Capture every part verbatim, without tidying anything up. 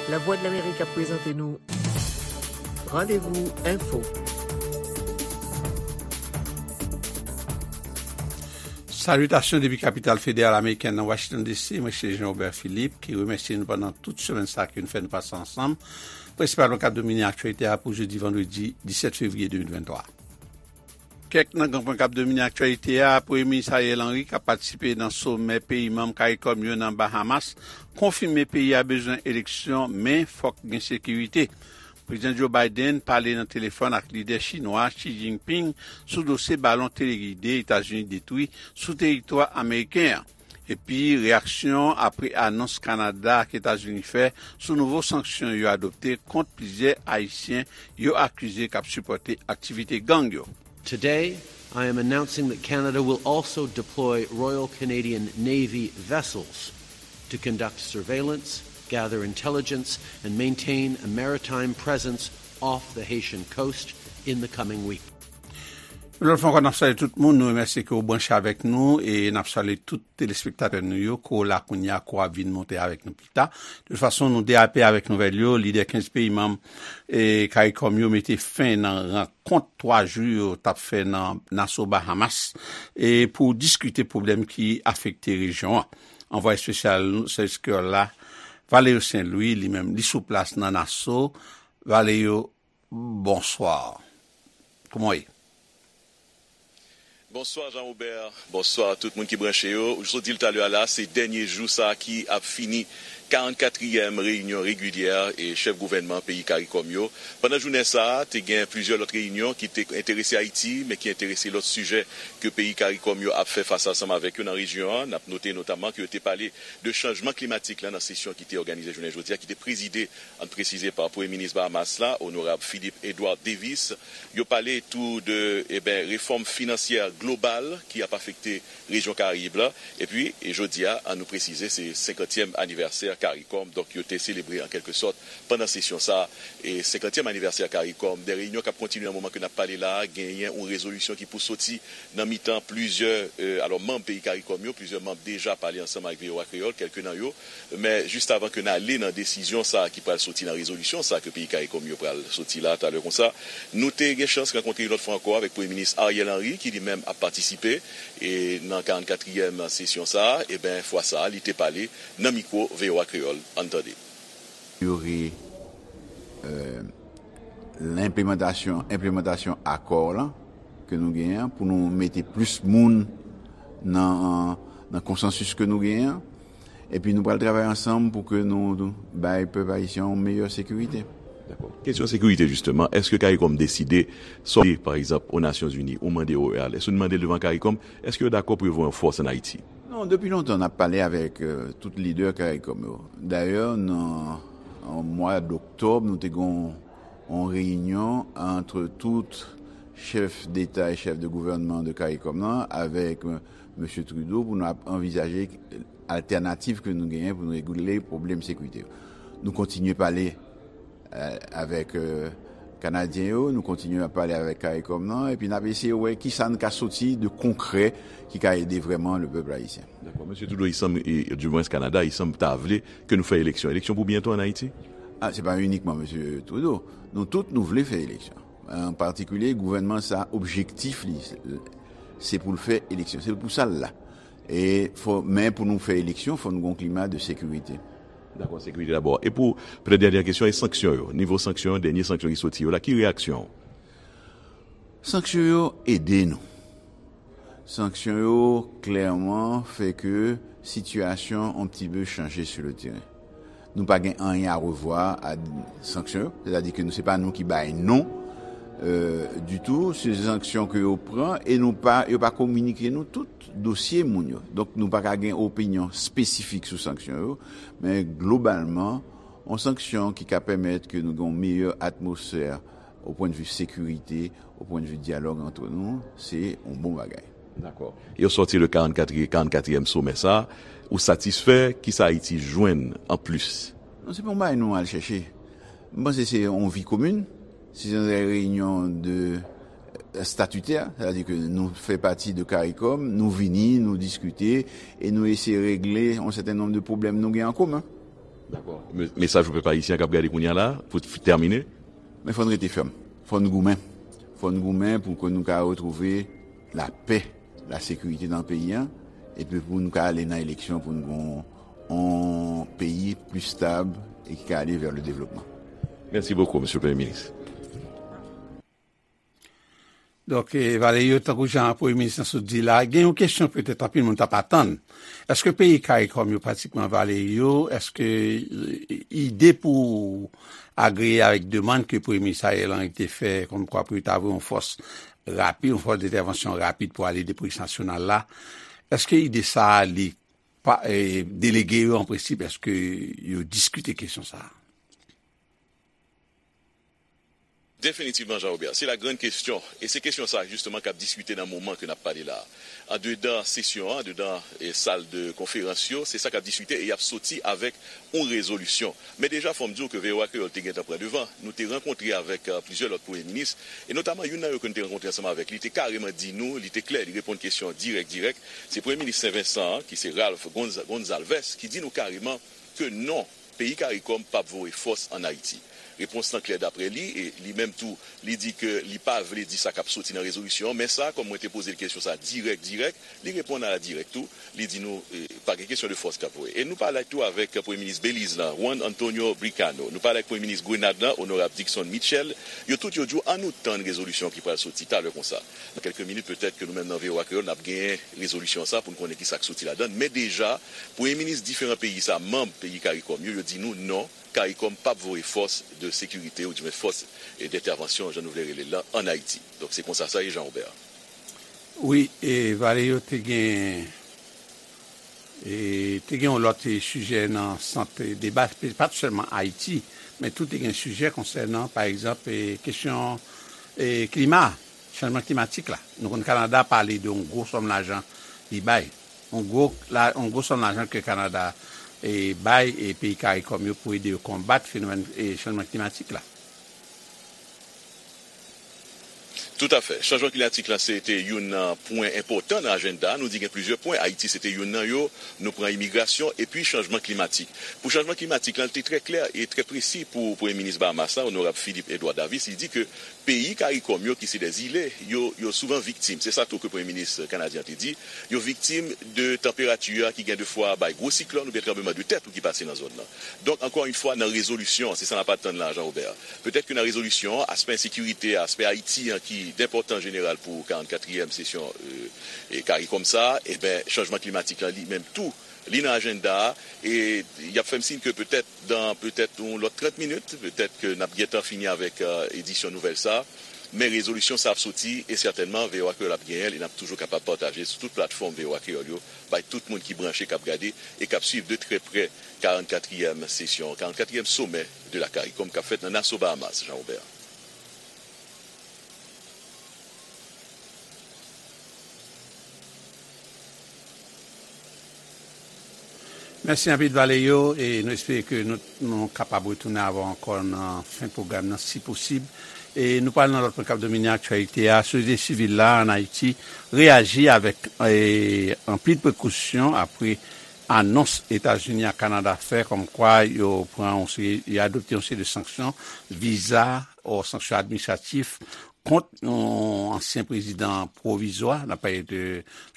Lavwadlamerik ap prezante nou Randevou Enfo. Salitasyon depi kapital federal amerikèn nan Washington D C, mwen se Jean Robert Philippe, ki remèsye nou pandan tout semèn sa ke nou fè nou pase ansanm, prensipalman k ap domine aktyalite a pou jodi vandredi disèt fevriye de mil venntwa. Kèk nan gran pwen k ap domine aktyalite a, Premye Minis Ariel Henry, k ap patisipe nan somè peyi manm CARICOM yo nan Bahamas, konfime peyi a bezwen eleksyon, men fòk gen sekirite. Prezidan Joe Biden pale nan telefòn ak lidè chinwa Xi Jinping sou dosye balon telegide Etazini detwi sou teritwa ameriken an. Epi, reyaksyon apre anons Kanada ak Etazini fè sou nouvo sanksyon yo adopte kont plizyè Ayisyen yo akize k ap sipòte aktivite gang yo. Today, I am announcing that Canada will also deploy Royal Canadian Navy vessels to conduct surveillance, gather intelligence, and maintain a maritime presence off the Haitian coast in the coming week. Yon lòt fwa ankò, n ap salye tout moun. Nou remèsye ke w branche avèk nou e n ap salye tout telespektatè nou yo, ke w la kounye a, ke w ap vin monte avèk nou pita. De tout fason, nou derape avèk nouvèl yo. Lidè kenz peyi manm e CARICOM yo mete fen nan rankont twa jou yo t ap fè nan Nassau, Bahamas, e pou diskite pwoblèm ki afekte rejyon an. Anvwaye espesyal nou, sèvis kreyòl la, Valerio Saint Louis, li menm, li sou plas nan Nassau. Valerio, bonswa. Kòman w ye? Bonswa Jean Robert, bonswa tout moun ki branche yo. Ou sot di l talè a la, se dènye jou sa ki ap fini karannkatriyèm reyinyon regilyè e chèf gouvènman peyi CARICOM yo. Pandan jounen sa a, te gen plizyè lòt reyinyon ki te enterese Ayiti, men ki enterese lòt sijè ke peyi CARICOM yo ap fè fas ansanm avèk yo nan rejyon an. N ap note notaman ke yo te pale de chanjman klimatik la nan sesyon ki te òganize jounen jodi a, ki te prezide, ann presize, pa Premye Minis Bahamas la, Onorab Philip Edouard Davis. Yo pale tou de, eben, refòm finansyè global ki ap afekte rejyon Karayib la. Epi, e jodi a, ann nou presize, se senkantyèm anivèsè CARICOM. Donk, yo te selebre, an kèlke sòt, pandan sesyon sa a, e senkantyèm anivèsè CARICOM. De reyinyon k ap kontinye nan moman ke n ap pale la a, genyen yon rezolisyon ki pou soti nan mitan plizyè, e, alò, manm peyi CARICOM yo, plizyè manm deja pale ansanm ak V O A Kreyòl, kèlke nan yo. Men, jis avan ke n ale nan desizyon sa a ki pral soti nan rezolisyon sa a ke peyi CARICOM yo pral soti la talè konsa, nou te gen chans rankontre yon lòt fwa ankò avèk Premye Minis Ariel Henry, ki li menm ap patisipe, e, nan karannkatriyèm sesyon sa a. Eben, fwa sa a, li te pale nan mikwo V O A Kreyòl. Ann tande. Amelyore, euh, lenplimantasyon, enplimantasyon akò lan ke nou genyen an, pou nou mete plis moun nan, nan konsansis ke nou genyen an. Epi nou pral travay ansanm pou ke nou, nou bay pèp ayisyen an yon meyè sekirite. Dakò. Kesyon sekirite, jisteman, èske CARICOM deside sòti, pa egzanp, o Nasyonzini, ou mande O E A, lè nou mande l devan CARICOM, èske yo dakò pou yo voye yon fòs ann Ayiti? Non, depi lontan, n ap pale avèk, euh, tout lidè CARICOM yo. Dayè, nan, an mwa doktòb, nou te gen yon, yon reyinyon ant tout chèf deta e chèf de gouvènman de CARICOM nan avèk, euh, mesye Trudeau pou nou ap anvizaje altènativ ke nou genyen pou nou regle pwoblèm sekirite yo. Nou kontinye pale, euh, avèk, euh, Kanadyen yo, nou kontinye ap pale avèk CARICOM nan, epi n ap eseye wè kisa n ka soti de konkrè ki ka ede vrèman le pèp ayisyen. Dakò. Mesye Trudeau, il semble, e, du moins Kanada, il semble ta vle ke nou fè eleksyon. Eleksyon pou byento ann Ayiti? Ah, se pa inikman mesye Trudeau. Nou tout, nou vle fè eleksyon. An patikilye, gouvènman sa, objektif li, se, se pou l fè eleksyon. Se pou sa l la. E fò, men pou nou fè eleksyon, fò nou gen yon klima de sekirite. Dakò, sekirite dabò. E pou, petèt, dènyè kesyon, e sanksyon yo? Nivo sanksyon yo, dènye sanksyon ki soti yo la, ki reyaksyon w? Sanksyon yo ede nou. Sanksyon yo klèman fè ke sitiyasyon on pti pe chanje sur le terrain. Nou pa gen anyen a revwa a sanksyon yo, sètadi ke nou, se pa nou ki bay non, euh, ditou, se sanksyon ke yo pran e nou pa, yo pa kominike nou tout dosye moun yo. Donk, nou pa ka gen opinyon espesifik sou sanksyon yo, men globalman, yon sanksyon ki ka pèmèt ke nou gen yon meyè atmosfè o pwennvi sekirite, o pwennvi dyalòg ant nou, se yon bon bagay. Dakò. Yo sòti le karannkatriyèm, karannkatriyèm somè sa, ou satisfè? Kisa Ayiti jwenn anplis? Non, se pa yon bagay nou al chèche. M panse se yon vi komin. Se yon reyinyon de, euh, statitè, sètadi ke nou fè pati de CARICOM, nou vini, nou diskite, e nou eseye regle yon sèten nonb de pwoblèm nou gen an komen. Dakò. Me- Mesaj pou pèp ayisyen k ap gade kounye a la, pou t- tèmine. Men fò n rete fèm. Fò n goumen. Fò n goumen pou ke nou ka retwouve lapè, lasekirite nan peyi a, epi pou nou ka ale nan eleksyon pou n gen yon peyi pli stab e ki ka ale vè le devlopman. Merci beaucoup, Monsieur le Premier ministre. Donk, eh, Valerio, tankou jan Premye Minis lan sot di la, gen yon kesyon petèt anpil moun t ap atann. Èske peyi CARICOM yo pratikman, Valerio, èske eh, ide pou agreye avèk demann ke Premye Minis Ariel Henry te fè, kòmkwa pou yo ta voye yon fòs rapid, yon fòs dentèvansyon rapid pou ale ede polis nasyonal la, èske ide sa a li pa, eh, delege yo an prensip, èske yo diskite kesyon sa a? Definitivman, Jean Robert, se la grande question. E se kesyon sa, jisteman, k ap diskite nan moman ke n ap pale la a. Andedan sesyon an, andedan eh, sal de konferans yo, se sa k ap diskite e y ap soti avèk yon rezolisyon. Men deja, fò m di w ke V O A Kreyòl te gentan pran devan. Nou te rankontre avèk eh, plizyè lòt premye minis, e notaman youn nan yo ke nou te rankontre ansanm avèk li, te kareman di nou, li te klè, li reponn kesyon dirèk, dirèk. Se premye minis Sen Vensan an, ki se Ralph Gonz- Gonzalvez, ki di nou kareman ke non, peyi CARICOM p ap voye fòs ann Ayiti. Repons lan klè daprè li, e li menm tou, li di ke li pa vle di sa k ap soti nan rezolisyon an, men sa, kòm mwen te poze l kesyon sa dirèk, dirèk, li reponn a la dirèk tou, li di nou, eh, pa gen kesyon de fòs k ap voye. E nou pale tou avèk Premye Minis Beliz lan, Juan Antonio Bricano, nou pale avèk Premye Minis Grenad lan, Onorab Dickson Mitchell, yo tout yo di w, ann nou tann rezolisyon ki pral soti talè konsa. Nan kèlke minit, petèt ke nou menm nan V O A Kreyòl, n ap genyen rezolisyon sa pou n konnen ki sa k soti ladan l. Men deja, premye minis diferan peyi sa, manm peyi CARICOM yo, yo di nou non, CARICOM p ap voye fòs de sekirite, oudimwen fòs eh, dentèvansyon, jan nou vle rele l lan, ann Ayiti. Donk, se konsa sa ye, Jean Robert. Wi, e Valerio te gen, e te gen yon lòt eh, sijè nan sant eh, deba, pa t sèlman Ayiti, men tou te gen sijè konsènan, pa egzanp, eh, kesyon eh, klima, chanjman klimatik la. Nou konn Kanada pale de yon gwo sòm lajan li bay. Yon gwo, la, yon gwo sòm lajan ke Kanada eh, bay eh, peyi CARICOM yo pou ede yo konbat fenomèn eh, chanjman klimatik la. Toutafè. Chanjman klimatik la, se te youn nan pwen enpòtan nan ajanda a. Nou di gen plizyè pwen. Ayiti, se te youn nan yo. Nou pran imigrasyon epi chanjman klimatik. Pou chanjman klimatik la, li te trè klè e trè presi pou Premye Minis Bahamas la, Onorab Philip Edouard Davis. Li di ke peyi CARICOM yo, ki se dè zile, yo, yo souvan viktim. Se sa tou ke Premye Minis kanadyen an te di. Yo viktim de tanperati a ki gen de fwa bay gwo siklòn oubyen tranbleman de tè tou ki pase nan zòn nan. Donk, ankò yon fwa, nan rezolisyon an, se sa n ap atann la, Jean Robert. Petèt ke nan rezolisyon an, aspè ensekirite a, aspè Ayiti an ki enpòtan jeneral pou karannkatriyèm sesyon eh, eh, CARICOM sa, eben, chanjman klimatik lan li menm tou, li nan ajanda a, e y ap fè m siy ke petèt, dan petèt yon lòt trant minit, petèt ke n ap gentan fini avèk eh, edisyon nouvèl sa, men rezolisyon sa ap soti, e sètènman, V O A Kreyòl ap genyen l, e n ap toujou kapab pataje sou tout platfòm V O A Kreyòl yo, bay tout moun ki branche, k ap gade, e k ap swiv de trè prè karannkatriyèm sesyon, karannkatriyèm somè de la CARICOM k ap fèt nan Nassau, Bahamas, Jean Robert. Mèsi anpil, Valerio, e nou espere ke nou, nou kapab retounen avè w ankò nan fen pwogram nan, si posib. E nou pral nan lòt pwen k ap domine aktyalite a. Sosyete sivil la ann Ayiti reyaji avèk eh, anpil prekosyon apre anons Etazini ak Kanada fè kòmkwa yo pran yon seri, yo adopte yon seri de sanksyon, viza, o sanksyon administratif kont yon ansyen prezidan pwovizwa, n ap pale de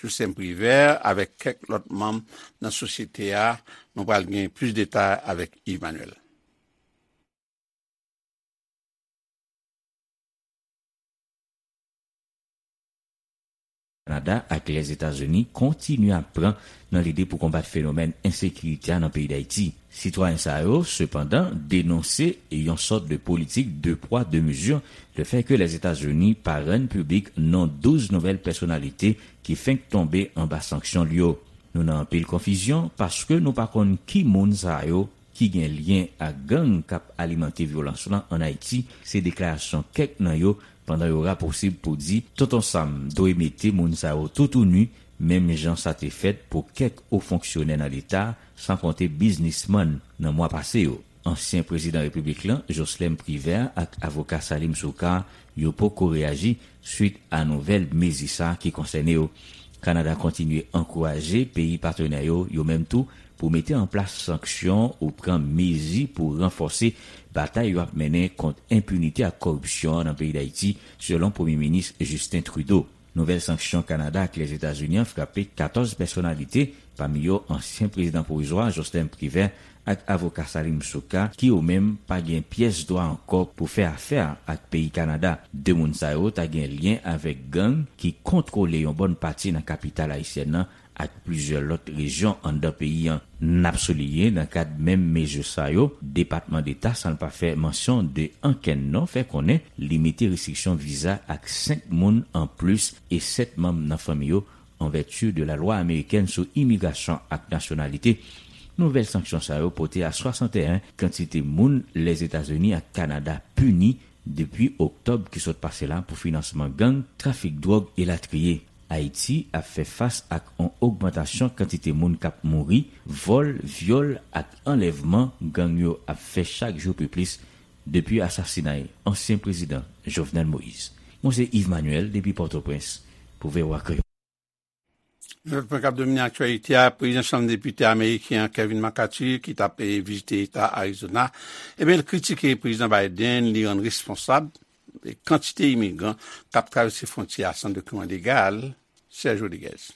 Jocelerme Privert, avèk kèk lòt manm nan sosyete a. Nou pral gen plis detay avèk Yves Manuel. Kanada ak Lèzetazini kontinye ap pran nan lide pou konbat fenomèn ensekirite a nan peyi Dayiti. Sitwayen sa yo, sepandan, denonse yon sòt de politik de pwa, de mezi, lefètke Lèzetazini pa rann piblik non douz nouvèl pèsonalite ki fenk tonbe anba sanksyon l yo. Nou nan anpil konfizyon paske nou pa konn ki moun sa yo ki gen lyen ak gang k ap alimante vyolans lan ann Ayiti, se deklarasyon kèk nan yo pandan yo rapousib pou di Tonton Sam dwe mete moun sa yo toutouni, menm jan sa te fèt pou kèk wo fonksyonè nan Leta, san konte biznismann nan mwa pase yo. Ansyen prezidan repiblik lan, Jocelerme Privert, ak avoka Salim Soukar, yo poko reyaji swit a nouvèl mezi sa a ki konsène yo. Kanada kontinye ankouraje peyi patnè yo, yo menm tou, pou mete an plas sanksyon ou pran mezi pou ranfòse batay yo ap mennen kont enpinite ak kòripsyon an nan peyi Dayiti, selon Premye Minis Justin Trudeau. Nouvèl sanksyon Kanada ak Lèzetazini an frape katòz pèsonalite, pami yo ansyen prezidan pwovizwa Jocelyn Privert ak avoka Salim Souka, ki yo menm pa gen pyès dwa ankò pou fè afè ak peyi Kanada. De moun sa yo ta gen lyen avèk gang ki kontwole yon bòn pati nan kapital ayisyèn nan ak plizyè lòt rejyon anndan peyi an. N ap souliye, nan kad menm mezi sa yo, Depatman Deta, san l pa fè mansyon de ankenn non, fè konnen li mete restriksyon viza ak senk moun anplis e sèt manm nan fanmi yo, an vèti de lalwa amerikèn sou imigrasyon ak nasyonalite. Nouvèl sanksyon sa yo pote a swasanteyen kantite moun Lèzetazini ak Kanada pini depi oktòb ki sot pase la pou finansman gang, trafik dwòg elatriye. Ayiti ap fè fas ak yon ogmantasyon kantite moun k ap mouri, vòl, vyòl ak anlèvman gang yo ap fè chak jou pi plis depi asasinay ansyen prezidan Jovenel Moïse. Mwen se Yves Manuel depi Pòtoprens pou V O A Kreyòl. Yon lòt pwen k ap domine aktyalite a, prezidan Chanm Depite ameriken an, Kevin McCarthy, ki t ap, eh, vizite eta Arizona, ebyen, l kritike prezidan Biden, li rann responsab, eh, kantite imigran k ap travèse fwontyè a san dokiman legal. Serge Rodriguez.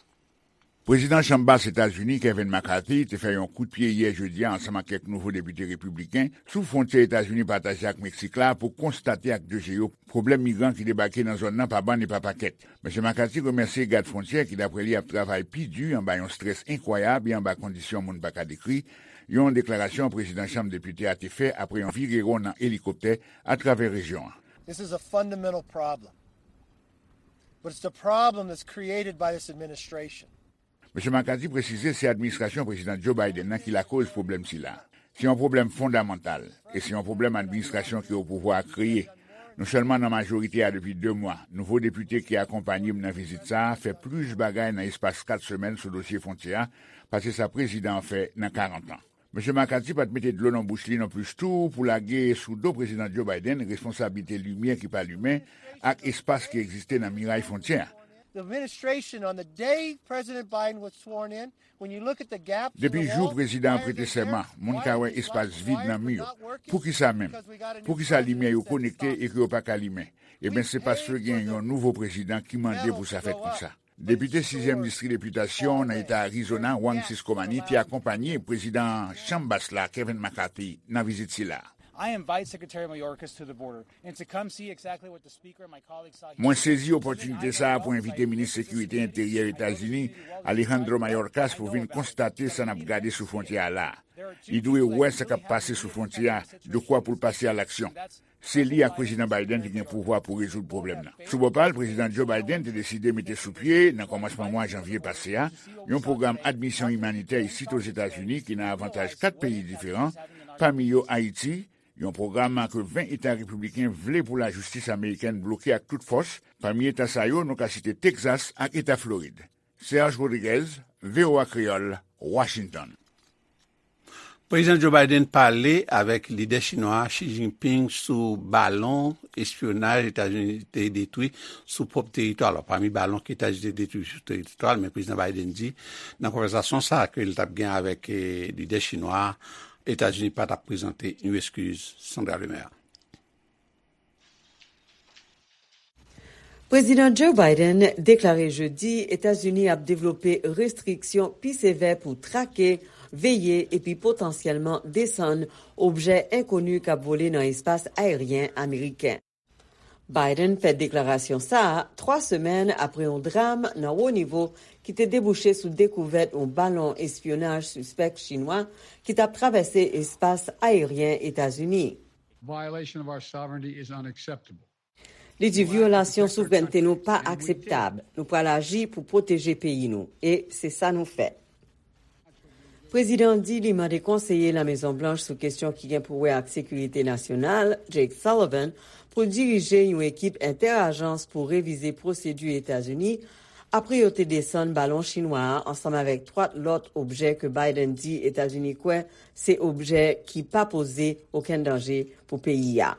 Prezidan Chanm Bas Etazini, Kevin McCarthy, te fè yon kout pye yè jedi a ansanm ak kèk nouvo depite repibliken sou fwontyè Etazini pataje ak Meksik la pou konstate ak je yo pwoblèm migran ki debake nan zòn nan pa bann e pa pakèt. Mesye McCarthy remèsye gad fwontyè ki, dapre li, ap travay pi di anba yon estrès enkwayab e anba kondisyon moun pa ka dekri, yon deklarasyon prezidan Chanm Depite a te fè apre yon virewon nan elikoptè atravè rejyon an. This is a fundamental problem. But it's the problem that's created by this administration. Mesye McCarthy presize se administrasyon Prezidan Joe Biden nan ki lakoz pwoblèm sila. Se yon pwoblèm fondamantal, e se yon pwoblèm administrasyon ki o pouvwa a kreye. Nou sèlman nan majorite a depi de mwa. Nouvo depite ki akonpaye m nan vizit sa a fè plis bagay nan espas kat semèn sou dosye fwontyè a pase sa prezidan an fè nan karant an. Mesye McCarthy pa t mete dlo nan bouch li non plis tou pou lage sou do Prezidan Joe Biden responsablite limyè ki pa limen ak espas ki egziste nan miray fwontyè a. The administration, on the day President Biden was sworn in, when you look at the gaps in the wall, why are they there? Depi jou prezidan an prete sèman, moun ka wè espas vid nan mi yo. Poukisa menm? Poukisa limyè yo konekte e ke yo pa ka limen? Ebyen, se paske gen yon nouvo prezidan ki mande pou sa fèt konsa. Depite sizyèm distri depitasyon nan eta Arizona, Juan Ciscomani, te akonpaye prezidan Chanm Bas la, Kevin McCarthy, nan vizit sila. I invite Secretary Mayorkas to the border and to come see exactly what the Speaker and my colleagues saw here. Mwen sezi opòtinite sa a pou envite minis sekirite enteryè Etazini, Alejandro Mayorkas, pou vin konstate sa n ap gade sou fwontyè a la. Li dwe wè sa k ap pase sou fwontyè a, dekwa pou l pase a laksyon. Se li ak Prezidan Biden ki gen pouvwa pou rezoud pwoblèm nan. Sou bò pa l, Prezidan Joe Biden te deside mete sou pye, nan kòmansman mwa janvye pase a, yon pwogram admisyon imanitè isit Ozetazini ki nan avantaj kat peyi diferan, pami yo Ayiti, yon pwogram ke ven eta repibliken vle pou lajistis amerikèn bloke ak tout fòs. Pami eta sa yo, nou ka site Texas ak eta Florid. Serge Rodriguez, V O A Kreyòl, Washington. Prezidan Joe Biden pale avèk lidè chinwa Xi Jinping sou balon espyonaj Etazini te detwi sou pwòp teritwa l. Pami balon ke Etazini te detwi sou teritwa l, men Prezidan Biden di nan konvèsasyon sa a ke l t ap gen avèk, eh, lidè chinwa a, Etazini pa t ap prezante yon eskiz. Sandra Lemaire. Prezidan Joe Biden deklare jedi Etazini ap devlope restriksyon pi sevè pou trake, veye epi potansyèlman desann objè enkoni k ap vole nan espas ayeryen ameriken. Biden fè deklarasyon sa a twa semèn apre yon dram nan wo nivo ki te debouche sou dekouvèt yon balon espyonaj sispèk chinwa ki t ap travèse espas ayeryen Etazini. Violation of our sovereignty is unacceptable. Li di vyolasyon souvrènte nou pa akseptab. Nou pral aji pou pwoteje peyi nou, e se sa nou fè. Prezidan an di li mande konseye Lamezon Blanch sou kesyon ki gen pou wè ak sekirite nasyonal, Jake Sullivan, pou l dirije yon ekip entè-ajans pou revize pwosedi Etazini apre yo te desann balon chinwa a ansanm avèk twa lòt objè ke Biden di Etazini kwè se objè ki pa poze okenn danje pou peyi a.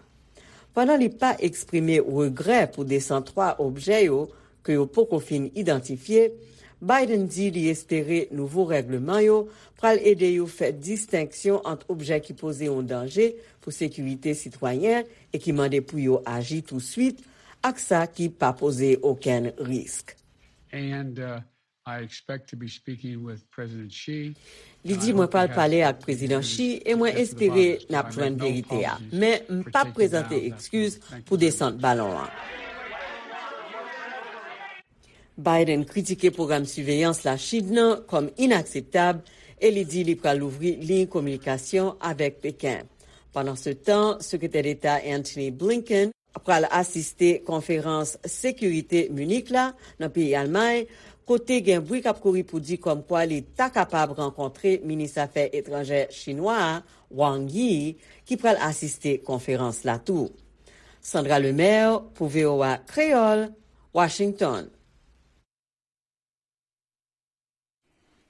Pandan li pa eksprime regrè pou desann twa objè yo ke yo poko fin idantifye, Biden di li espere nouvo règleman yo pral ede yo fè distenksyon ant objè ki poze yon danje pou sekirite sitwayen e ki mande pou yo aji touswit, ak sa ki pa poze okenn risk. And uh, I expect to be speaking with President Xi. Li di, "Mwen pral pale ak Prezidan Xi e mwen espere n ap jwenn verite a. Men m p ap prezante ekskiz pou desant balon an." Biden kritike pwogram siveyans Lachin nan kòm inakseptab e li di li pral louvri liy kominikasyon avèk Peken. Pandansetan, Sekretè Deta Antony Blinken pral asiste konferans sekirite Minik la nan peyi Almay, kote gen bri k ap kouri pou di kòmkwa li ta kapab rankontre minis afè etranjè chinwa a, Wang Yi, ki pral asiste konferans la tou. Sandra Lemaire pou V O A Kreyòl, Washington.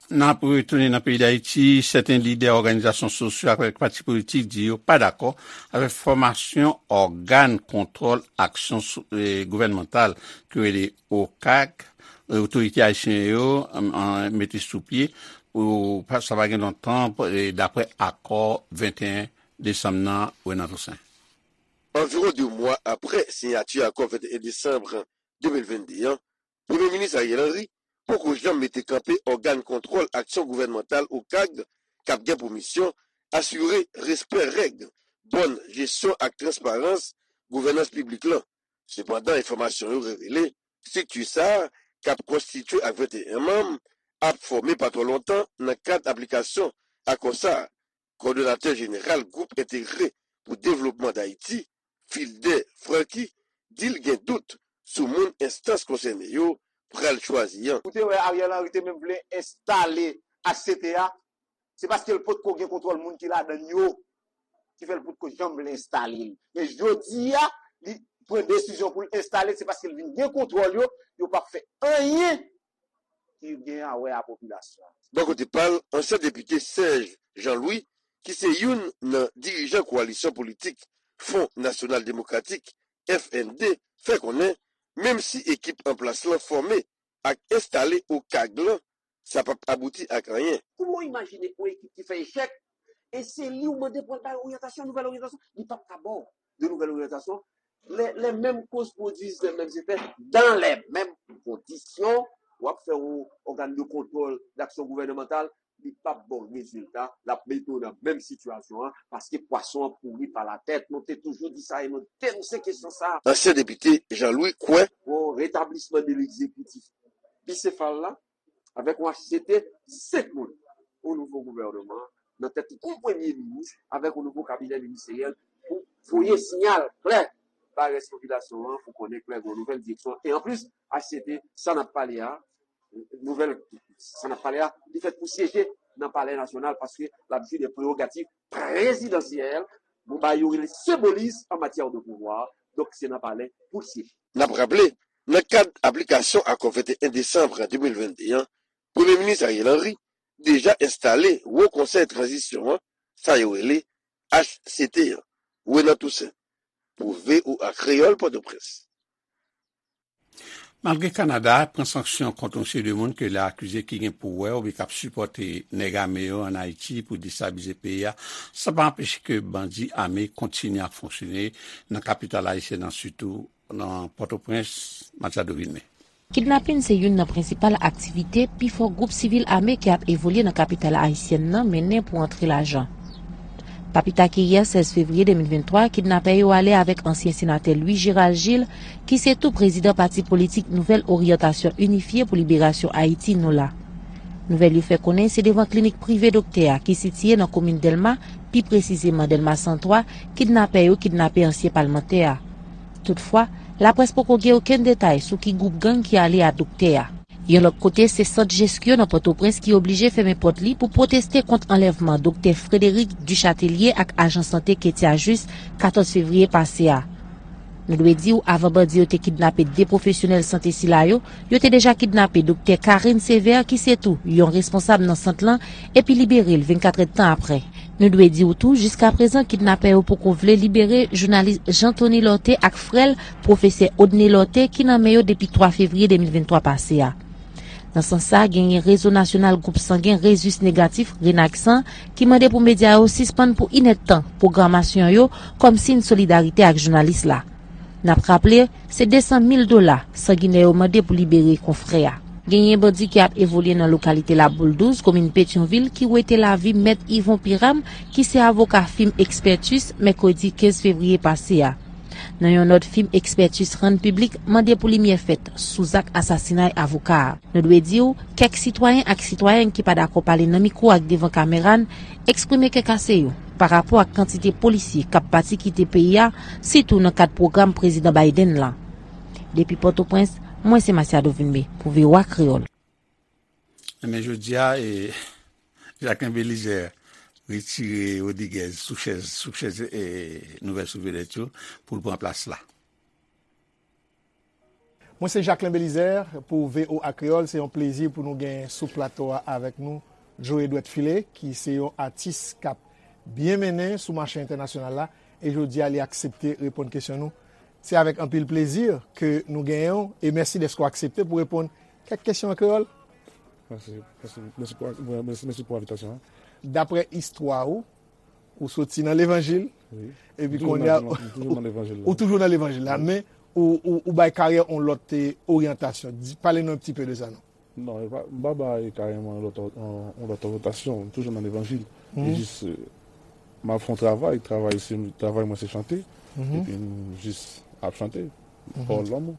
N ap retounen nan peyi Dayiti. Sèten lidè òganizasyon sosyo ak pati politik di yo pa dakò avèk fòmasyon ògàn kontwòl aksyon sou- e, gouvènmantal ki rele OCAG, e, otorite ayisyen yo, an, an, mete sou pye pou pa- sa pa gen lontan, e, daprè akò venteyen desanm nan, Renan Toussaint. Anviwon de mwa apre siyati akò venteyen desanm de mil vennde an, Premye Minis Ariel Henry poko janm mete kanpe ògàn kontwòl aksyon gouvènmantal OCAG k ap gen pou misyon asire respè règ, bòn jesyon ak transparans gouvènans piblik lan. Sepandan, enfòmasyon yo revele, estrikti sa a, k ap konstitye ak venteyen manm, ap fòme pa twò lontan nan kad aplikasyon akò sa a. Kowòdonatè jeneral Gwoup Entegre pou Devlopman Dayiti, Filder Francky, di l gen dout sou moun enstans konsène yo pral chwazi an. Ou te wè Ariel Henry te menm vle enstale H C T A, se paske l potko gen kontwòl moun ki ladan l yo, ki fè l potko janm vle enstale l. Men jodi a, li pran desizyon pou l enstale l, se paske l vin gen kontwòl yo, yo p ap fè anyen ki gen a wè a popilasyon an. Bò kote pa l, ansyen depite Serge Jean Louis, ki se youn nan dirijan kowalisyon politik Fwon Nasyonal Demokratik, F N D, fè konnen, menm si ekip an plas lan fòme ak enstale OCAG lan, sa p ap abouti ak anyen. Kouman w imajine yon ekip ki fè echèk, e se li w mande pou al bay oryantasyon, nouvèl oryantasyon? Li p ap ka ba w de nouvèl oryantasyon. Les, les mêmes causes produisent les mêmes effets dans les mêmes conditions. W ap fè yon ògàn de kontwòl daksyon gouvènmantal, li p ap ba w rezilta, l ap mete w nan menm sitiyasyon an, paske pwason an pouri pa latèt. Nou te toujou di sa e nou denonse kesyon sa a. Ansyen depite Jean Louis kwè. Bon, retablisman de legzekitif bisefal la, avèk yon H C T, senk moun, yon nouvo gouvènman, nan tèt yon premye minis, avèk yon nouvo kabinè ministeryèl, pou voye siyal klè bay rès popilasyon an, pou konnen klè gen yon nouvèl direksyon. E anplis, H C T, sa n ap pale a, nouvèl, sa n ap pale a, li fèt pou syeje nan Palè Nasyonal, paske l ap jwi de prerogativ prezidansyèl, nou ba yo rele senbolis an matyè de pouvwa, donk se nan palè pou l syeje. N ap raple, nan kad aplikasyon akò venteyen desanm de mil vennde an, Premye Minis Ariel Henry deja enstale Wo Konsèy Tranzisyon an, sa yo rele H C T an. Renan Toussaint, pou V O A Kreyòl, Pòtoprens. Malgre Kanada pran sanksyon kont yon seri de moun ke l akize ki gen pou wè oubyen k ap sipòte nèg ame yo ann Ayiti pou destabilize peyi a, sa pa anpeche ke bandi ame kontinye ap fonksyone nan kapital ayisyèn nan, sitou nan Pòtoprens, Matiado Vilmé. Kidnapin se youn nan prensipal aktivite pifò gwoup sivil ame ki ap evolye nan kapital ayisyèn nan mennen pou antre lajan. Pa pita ke yè, sèz fevriye de mil venntwa, kidnapè yo ale avèk ansyen senatè Louis Gérald Gilles, ki se tou prezidan pati politik Nouvèl Oryantasyon Inifye pou Liberasyon Ayiti, NOLA. Nouvèl yo fè konnen se devan klinik prive doktè a, ki sitiye nan komin Dèlma, pi presizeman Dèlma san twa, kidnapè yo kidnape ansyen palmantè a. Toutfwa, laprès poko gen okenn detay sou ki gwoup gang ki ale a doktè a. Yon lòt kote, se sant Jeskyo nan Pòtoprens ki oblije fèmen pòt li pou pwoteste kont anlèvman doktè Frédéric Duchâtelier ak ajan sante Ketia Juste katòz fevriye pase a. Nou dwe di w, avan bandi yo te kidnape de pwofesyonèl sante sila yo, yo te deja kidnape doktè Karine Sévère, ki se tou yon responsab nan sant lan, epi libere l vennkatrèdtan apre. Nou dwe di w tou, jiskaprezan, kidnapè yo poko vle libere jounalis Jean Thony Lorthé ak frè l, pwofesè Odney Lorthé, ki nan men yo depi twa fevriye de mil venntwa pase a. Nan sans sa, genyen Rezo Nasyonal Gwoup Sangen Rezis Negatif, Renagsan, ki mande pou medya yo sispann pou inèdtan pwogramasyon yo kòm siy solidarite ak jounalis la. N ap raple, se de san mil dola sanginè yo mande pou libere konfrè a. Genyen bandi ki ap evolye nan lokalite Laboul douz, komin Petyonvil, ki wete lavi Mèt Yvon Piram, ki se avoka Fim Expertus, mèkredi kenz fevriye pase a. Nan yon nòt, Fim Expertus rann piblik mande pou limyè fèt sou zak asasinay avoka a. Nou dwe di w, kèk sitwayen ak sitwayèn ki pa dakò pale nan mikwo ak devan kamera n eksprime kè kase yo pa rapò ak kantite polisye k ap pati kite peyi a, sitou nan kad pwogram Prezidan Biden lan. Depi Pòtoprens, mwen se Masiado Vilmé pou V O A Kreyòl. Ebyen, jodi a, e, Jacquelin Belizaire retire Rodriguez sou chèz, sou chèz e, Nouvèl Souvedèt yo pou l pran plas la. Mwen se Jacquelin Belizaire pou V O A Kreyòl. Se yon plezi pou nou gen sou plato a avèk nou Joe Edward Philé, ki se yon atis k ap byen mennen sou mache entènasyonal la. E jodi a, li aksepte reponn kesyon nou. Se avèk anpil plezi ke nou genyen w. E mèsi dèske w aksepte pou reponn kèk kesyon an kreyòl. Mèsi, mèsi, mèsi pou, mèsi, mèsi pou envitasyon an. Daprè istwa ou, ou soti nan levanjil, epi kounye a, ou toujou nan levanjil la, men ou, ou, ou bay karyè yon lòt e, oryantasyon. Di, pale nou yon ti pe de sa non. Non, e pa, m pa bay karyè mwen yon lòt, yon, yon lòt oryantasyon, m toujou nan levanjil. E jis, e, m ap fè yon travay, travay se, travay mwen se chante, epi m jis ap chante, pawòl lanmou.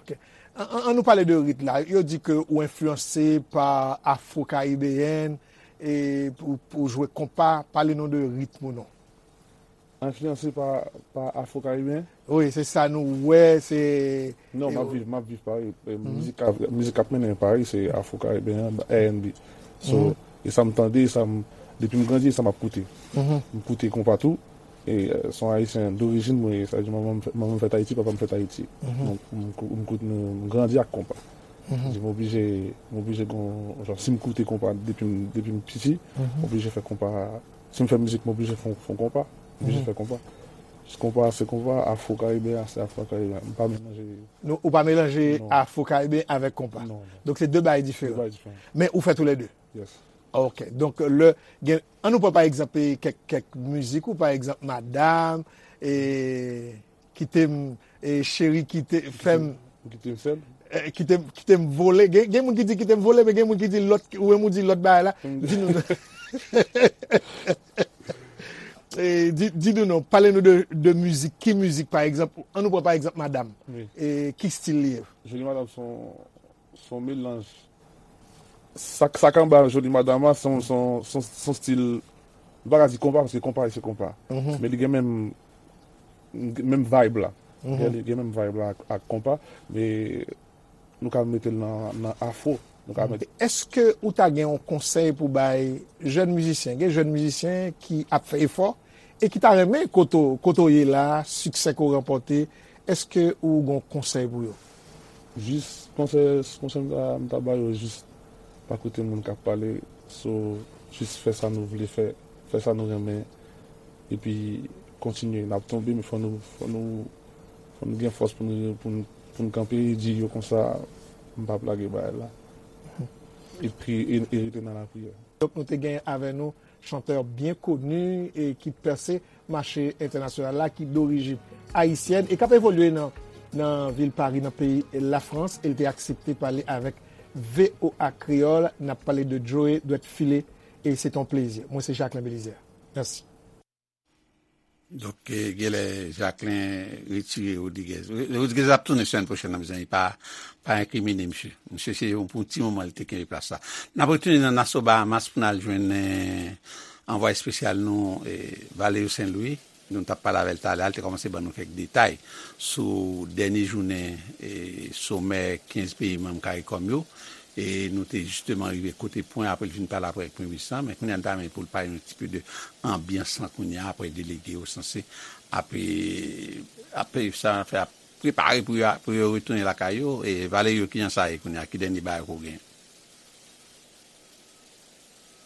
Ok. An, an, an nou pale de rit la. Yo di ke ou enfliyanse pa afro-karibeyèn e pou, pou jwe konpa. Pale nou de ritm ou non. Enfliyanse pa, pa afro-karibeyen? Wi, se sa nou wè, se. Non, m ap viv, m ap viv Pari. E, mizik k ap, mizik k ap mennen Pari, se afro-karibeyen, R and B. So, e sa m tande, e sa m, depi m grandi, e sa m ap koute. M koute konpa tou. E, e, se yon ayisyen dorijin mwen ye, sa vle di manman m fè, manman m fèt Ayiti, papa m fèt Ayiti. Donk, m, m, m, m grandi ak konpa. Di m oblije, m oblije gon, jan, si m koute konpa depi m, depi m piti, m oblije fè konpa, si m fè mizik, m oblije fè, fè konpa. M oblije fè konpa. Konpa se konpa, afro-karibeyen se afro-karibeyen. M pa melanje. Non, ou pa melanje afro-karibeyen avèk konpa. Non, non. Donk se de bagay diferan. De bagay diferan. Men ou fè toulède. Yes. Ok. Donk, lè, gen, an nou pran pa egzanp, e, kèk, kèk mizik ou, pa egzanp, Madam, e, Kite m, e, Cheri, kite, fè m. Kite m sèl. E, kite, kite m vole. Gen, gen moun ki di kite m vole, men gen moun ki di lòt, ou menm ou di lòt bagay la. Di nou. E, di, di nou non, pale nou de, de mizik. Ki mizik, pa egzanp? An nou pran pa egzanp Madam. Wi. E, ki stil li ye? Joli Madam se yon, se yon melanj. Sa, sa k anba Joli Madam la, se yon, se yon, se yon, se yon stil, m pa ka di konpa, paske konpa se konpa. Men li gen menm, menm vibe la. Li gen menm vibe la ak, ak konpa, men nou ka mete l nan, nan afro. Nou ka mete. Èske ou ta gen yon konsèy pou bay jèn mizisyen? Gen jèn mizisyen ki ap fè efò e ki ta renmen kote w, kote w ye la, siksè ke w ranpòte, èske ou gen yon konsèy pou yo? Jis konsèy, konsèy m ta, m ta ba yo, jis pa koute moun k ap pale, so, jis fè sa nou vle fè, fè sa nou renmen, epi kontinye. N ap tonbe, men fò nou, fò nou, fò nou gen fòs pou nou, pou nou, pou nou kanpe e di yo konsa, m p ap lage bagay la. Epi, e, e rete nan lapriyè. Donk, nou te genyen avè nou chantè byen koni e ki pèse mache entènasyonal la, ki dorijin ayisyèn e k ap evolye nan, nan vil Pari, nan peyi Lafrans, e l te aksepte pale avèk V O A Kreyòl. N ap pale de Joe Dwèt File, e se t on plezi. Mwen se Jacquelin Belizaire. Mèsi. Donk, e, genlè Jacquelin retire Rodriguez. Rodriguez ap tounen semèn pwochèn nan, mezanmi, pa, pa enkrimine misye. Misye se yon, pou yon ti moman li te kenbe plas la. N ap retounen nan Nassau Bahamas pou n al jwenn, e, anvwaye espesyal nou, e, Valerio Saint Louis. Nou t ap pale avè l talè a, li te kòmanse ban nou kèk detay sou dènye jounen, e, somè kenz peyi manm CARICOM yo. E nou te jisteman rive kote pwen apre l fin pale apre ak Premye Minis lan, men kounye a n ta renmen pou l pale nou ti pe de anbyans lan kounye a apre delege yo sanse ap, ap, sa fè ap prepare pou yo, pou yo retounen lakay yo. E Valerio, kijan sa ye kounye a? Ki dènye bagay ke w genyen?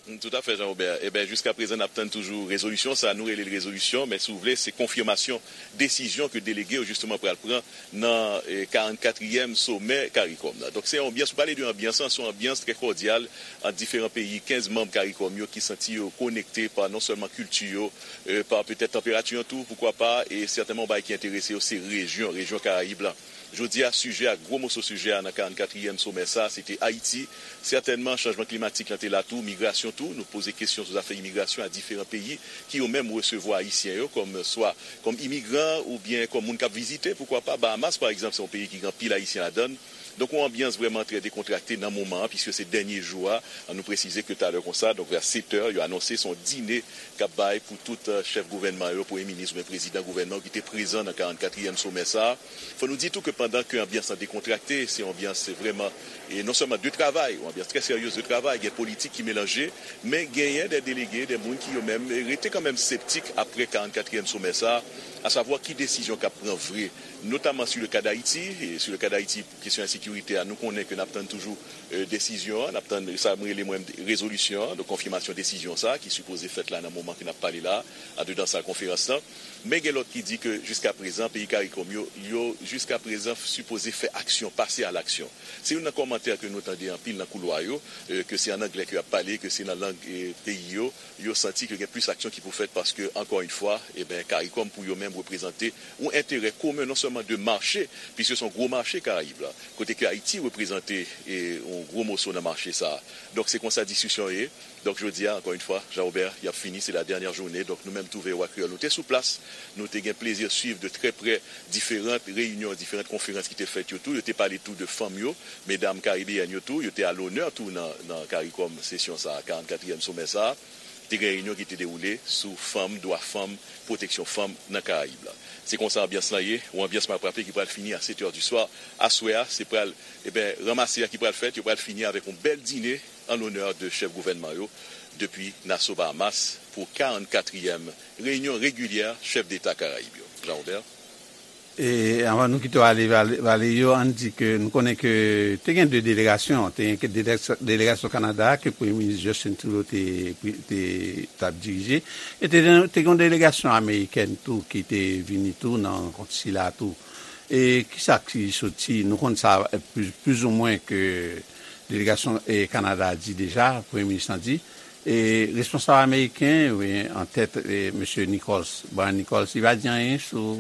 Toutafè, Jean Robert. Eben, jiskaprezan, n ap tann toujou rezolisyon sa. Nou rele l rezolisyon, men si w vle, se konfimasyon desizyon ke delege yo, jisteman, pral pran nan eh, karannkatriyèm somè Karikòm nan. Donk, se yon anbyans, ou pale de anbyans lan, se yon anbyans trè kòdyal ant diferan peyi, kenz manm Karikòm yo ki santi yo konekte pa non sèlman kilti yo, eh, pa petèt tanperati an tou, poukwa pa, e sètènman, yon bagay ki enterese yo, se rejyon, rejyon Karayib la. Jodi a, sijè a, gwo moso sijè a nan karannkatriyèm somè sa a, se te Ayiti. Sètènman, chanjman klimatik lan te la tou, migrasyon tou. Nou poze kesyon sou zafè imigrasyon a diferan peyi ki yo menm resevwa Ayisyen yo kòm swa kòm imigran oubyen kòm moun k ap vizite, poukwa pa. Bahamas, pa egzanp, se yon peyi ki gen anpil Ayisyen ladan l. Donk, yon anbyans vrèman trè dekontrakte nan moman an, piske se dènye jou a. An nou presize ke talè konsa, donk vè sèt è, yo anonse se yon dine k ap bay pou tout eh, chèf gouvènman yo, premye minis oubyen prezidan gouvènman yo ki te prezan nan karannkatriyèm somè sa a. Fò nou di tou ke pandan ke anbyans lan dekontrakte, se yon anbyans vrèman, e non sèlman de travay, yon anbyans trè seryez de travay, gen politik ki melanje, men genyen de delege, de moun ki yo menm rete kanmenm septik apre karannkatriyèm somè sa a, asavwa ki desizyon k ap pran vre, notamman sur le cas d'Haïti, e sur le cas d'Haïti, kesyon ensekirite a, nou konnen ke n ap tann toujou eh, desizyon an, n ap tann sa mwen rele mwen rezolisyon an, donk konfimasyon desizyon sa a ki sipoze fèt la nan moman ke n ap pale la, andedan sal konferans lan. Men gen lòt ki di ke jiskaprezan, peyi Karikòm yo, yo jiskaprezan sipoze fè aksyon, pase a laksyon. Se youn nan kòmantè ke nou tande anpil nan koulwa yo, eh, ke se an anglè ke y ap pale, ke se nan lang eh, peyi yo, yo santi ke gen plis aksyon ki pou fèt paske, ankò yon fwa, eben, Karikòm pou yo menm reprezante yon enterè komen non sèlman de mache, piske se yon gwo mache Karayib la, kote ke Ayiti reprezante eh, yon gwo moso nan mache sa a. Donk, se konsa diskisyon ye. Donk, jodi a, ankò yon fwa, Jean Robert, y ap fini, se la dènyè jounen. Donk, nou menm tou V O A Kreyòl, nou te sou plas, nou te gen plezi swiv de trè prè diferan reyinyon, diferan konferans ki te fèt yo tou. Yo te pale tou de fanm yo, medam karibeyèn yo tou, yo te a lonè tou nan, nan Karikòm sesyon sa a, karannkatriyèm somè sa a. Te gen reyinyon ki te dewoule sou fanm, dwa fanm, pwoteksyon fanm nan Karayib la. Se konsa anbyans lan ye, yon anbyans m ap raple ki pral fini a sèt è di swa. Aswè a, se pral, eben, ranmase a ki pral fèt, yo pral fini avèk yon bèl dine an lonè de chèf gouvènman yo depi Nassau, Bahamas, pou karannkatriyèm reyinyon regilyè chèf deta Karayib yo. Jean Robert. E anvan nou kite w ale, Vale-, Valerio, ann di ke nou konnen ke te gen de delegasyon, te gen ke delegasyon, delegasyon Kanada ke Premye Minis Justin Trudeau te, te, t ap dirije, e te, te gen yon delegasyon amerikèn tou ki te vini tou nan rankont sila tou. E kisa ki soti, nou konn sa, eh, plizoumwen ke delegasyon eh, Kanada a di deja, Premye Minis lan di, e responsab ameriken, wi, an tèt eh, mesye Nichols, Brian Nichols, li pa di anyen sou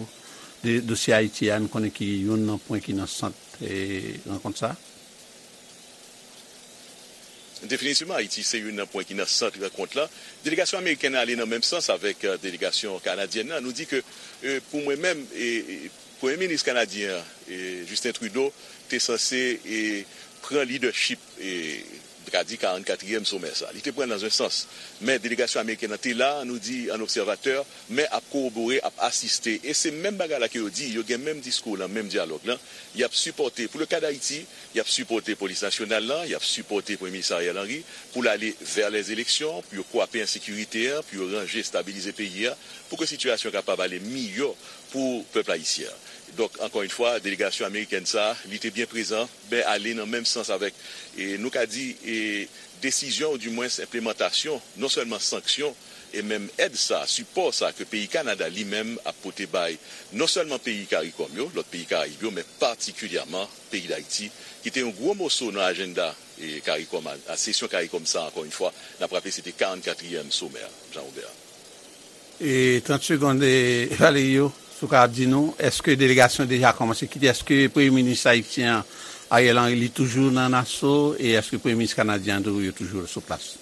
de, dosye Ayiti a, nou konnen ki youn nan pwen ki nan sant eh, rankont sa. Definitivman, Ayiti se youn nan pwen ki nan sant rankont la. Delegasyon amerikèn nan ale nan menm sans avèk eh, delegasyon kanadyèn nan. Nou di ke eh, pou mwen menm, eh, eh, Premye Minis kanadyen an, eh, Justin Trudeau, te sanse eh, pran lidèchip eh, m ka di karannkatriyèm somè sa. Li te pran nan yon sans. Men delegasyon amerikèn nan te la, nou di an obsèvatè, men ap kowobore, ap asiste. E se menm bagay la ke yo di, yo gen menm diskou lan, menm dyalòg lan. Y ap sipòte, pou le ka d Ayiti, y ap sipòte Polis Nasyonal lan, y ap sipòte Premye Minis Ariel Henry pou l ale vè lèzeleksyon, pou yo kwape ensekirite a, pou yo ranje, estabilize peyi a, pou ke sitiyasyon kapab ale miyò pou pèp ayisyen an. Donk, ankò yon fwa, delegasyon amerikèn sa a, li te byen prezan, men ale nan menm sans avèk, e, nou ka di, e, desizyon, oudimwens enplemantasyon, non sèlman sanksyon, e menm èd sa, sipò sa ke peyi Kanada li menm ap pote bay non sèlman peyi Karikòm yo, lòt peyi Karayib yo, men patikilyèman peyi Dayiti, ki te yon gwo moso nan ajannda, e, Karikòm a, a sesyon Karikòm sa, ankò yon fwa, n ap raple se te karannkatriyèm somè a, Jean Robert. E trant segonn, e, Valerio, si w ka di nou, èske delegasyon deja kòmanse kite? Èske Premye Minis ayisyen an, Ariel Henry, li toujou nan Nassau? E èske Premye Minis kanadyen an tou, yo toujou sou plas?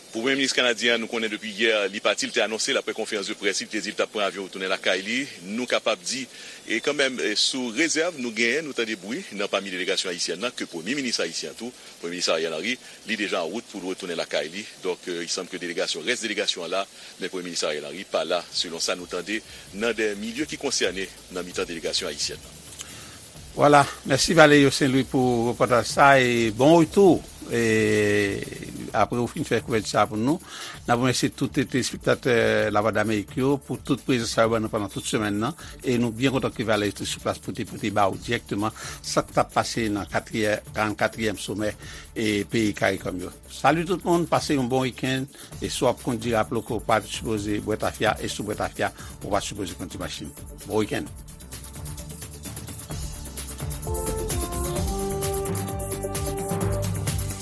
Pou Premye Minis kanadyen an, nou konnen depi yè, li pati, li te anonse l apre konferans de près li, li te di l t ap pran avyon retounen lakay li. Nou kapab di, e kanmenm, e sou rezèv nou genyen, nou tande bri nan pami delegasyon ayisyèn nan, ke Premye Minis ayisyen an tou, Premye Minis Ariel Henry, li deja an wout pou l retounen lakay li. Donk, e, il semble ke delegasyon, rès delegasyon an la, men Premye Minis Ariel Henry pa la, selon sa nou tande nan de milye ki konsène nan mitan delegasyon ayisyèn nan. Vwala, mèsi Valerio Saint Louis pou repòtaj sa e bon retou. E Apre ou fin fè kouvèti sa pou nou, n ap remèsye tout telespektatè Lavwadlamerik yo pou tout prezans sa yo ban nou pandan tout semèn nan. E nou byen kontan ke Valè te sou plas pou te pote ba ou dirèkteman sa k t ap pase nan katriyè, karannkatriyèm somè e peyi Karikòm yo. Sali tout moun, pase yon bon wikenn. E si w ap kondui, raple w ke w pa sipoze bwè tafya, e si w bwè tafya, ou pa sipoze kondui machin. Bon wikenn.